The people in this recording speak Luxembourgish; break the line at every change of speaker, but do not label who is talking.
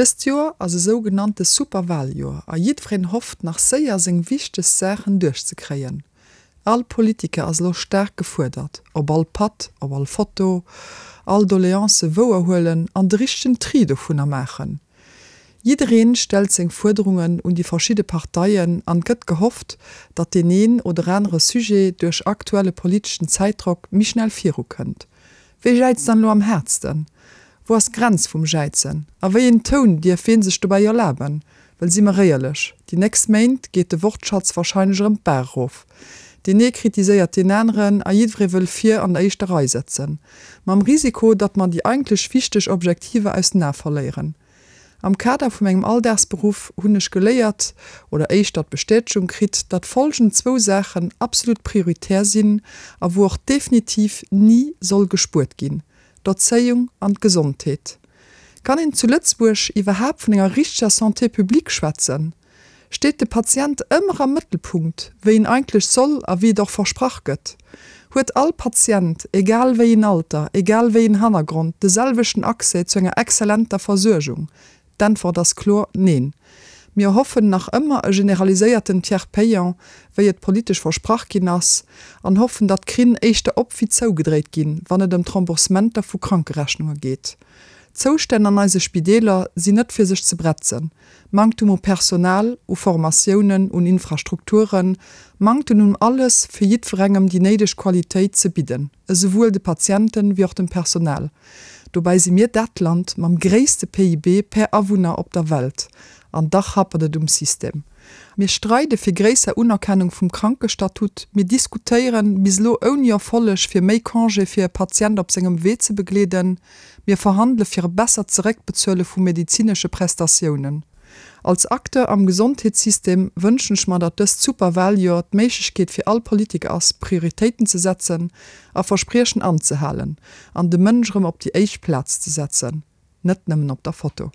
Dëst Joer ass e sougenannte Superwaljoer a jiddwereen hofft nach séier seng wichtegst Saachen duerchzekréien. All Politiker ass elo staark gefuerdert, op all Patt, op all Foto, all Doleance wouer huelen an de richtegen Tri dovunner maachen. Jiddereen stellt seng Fuerderungen un déi verschidde Parteien an gëtt gehofft, datt deen een oder anere Sujet duerch aktuelle politeschen Zäitdrock méi schnell viru kënnt. Wee jäizt dann elo am haartsten? Wou ass d'Grenz vum Jäizen? A wéi een Toun dierf ween sech dobäi erlaben? Well si mer éierlech, déi nächst Méint geet de Wortschatz warscheinlech erëm d'Baach erof. Deen ee kritiséiert deen aneren a jiddweree wëll vir an der éischter Rei sëtzen. Mam Risiko, datt mer déi eigentlech wichteg Objektiver aus den Ae verléieren. Am Kader vu mengem Alldagsberuff hunn ech geléiert, oder éischter d'Bestätegung kritt, datt folgend zwou Saachen absolut prioritär sinn a wou och definitiv ni soll gespuert ginn, d'Erzéiung an d'Gesondheet. Kann een zu Lëtzebuerg iwwerhaapt vun enger richteger Santé publique schwätzen? Steet de Patient ëmmer am Mëttelpunkt, wéi en eigentlech soll a wéi et och versprach gëtt? Huet all Patient, egal wéi een Alter, egal wéi een Hannergrond, de selwechten Accès zu enger exzellenter Versuergung? D'Äntwert ass kloer, Neen. Mir hoffen nach ëmmer e generaliséierten Tiers payant, wéi et politesch versprach ginn ass, an hoffen, datt d'Krinn éischter op wéi zougedréit ginn, wann et ëm d'Remboursementer vu Krankerechnunge geet. D'Zoustänn an eise Spideeler sinn net fir sech ze bretzen. Manktum u Personal, u Formatiounen, un Infrastrukturen, Manktem un alles, fir jiddwerengem déi néideg Qualitéit ze bidden, esouwuel de Patienten wéi och dem Personal. Dobäi si mir dat Land mam gréisste PIB per Awunner op der Welt, an dach happert et um System. Mir streide fir gréisser Unerkennung vum Krankestatut, mir diskutéieren, bis elo ouni Erfolleg, fir méi Congé fir e Patient op sengem Wee ze begleeden, Mir verhandele fir e bessert Zeréckbezuele vu medezinesche Prestatiounen. Als Acteur am Gesondheetssystem wënschen ech mer, datt dëst Superwaljoer d'Méiglechkeet fir all Politiker ass, Prioritéiten ze setzen a Verspriechen anzehalen an de Mënsch erëm op déi éischt Plaz ze setzen, net nëmmen op der Foto.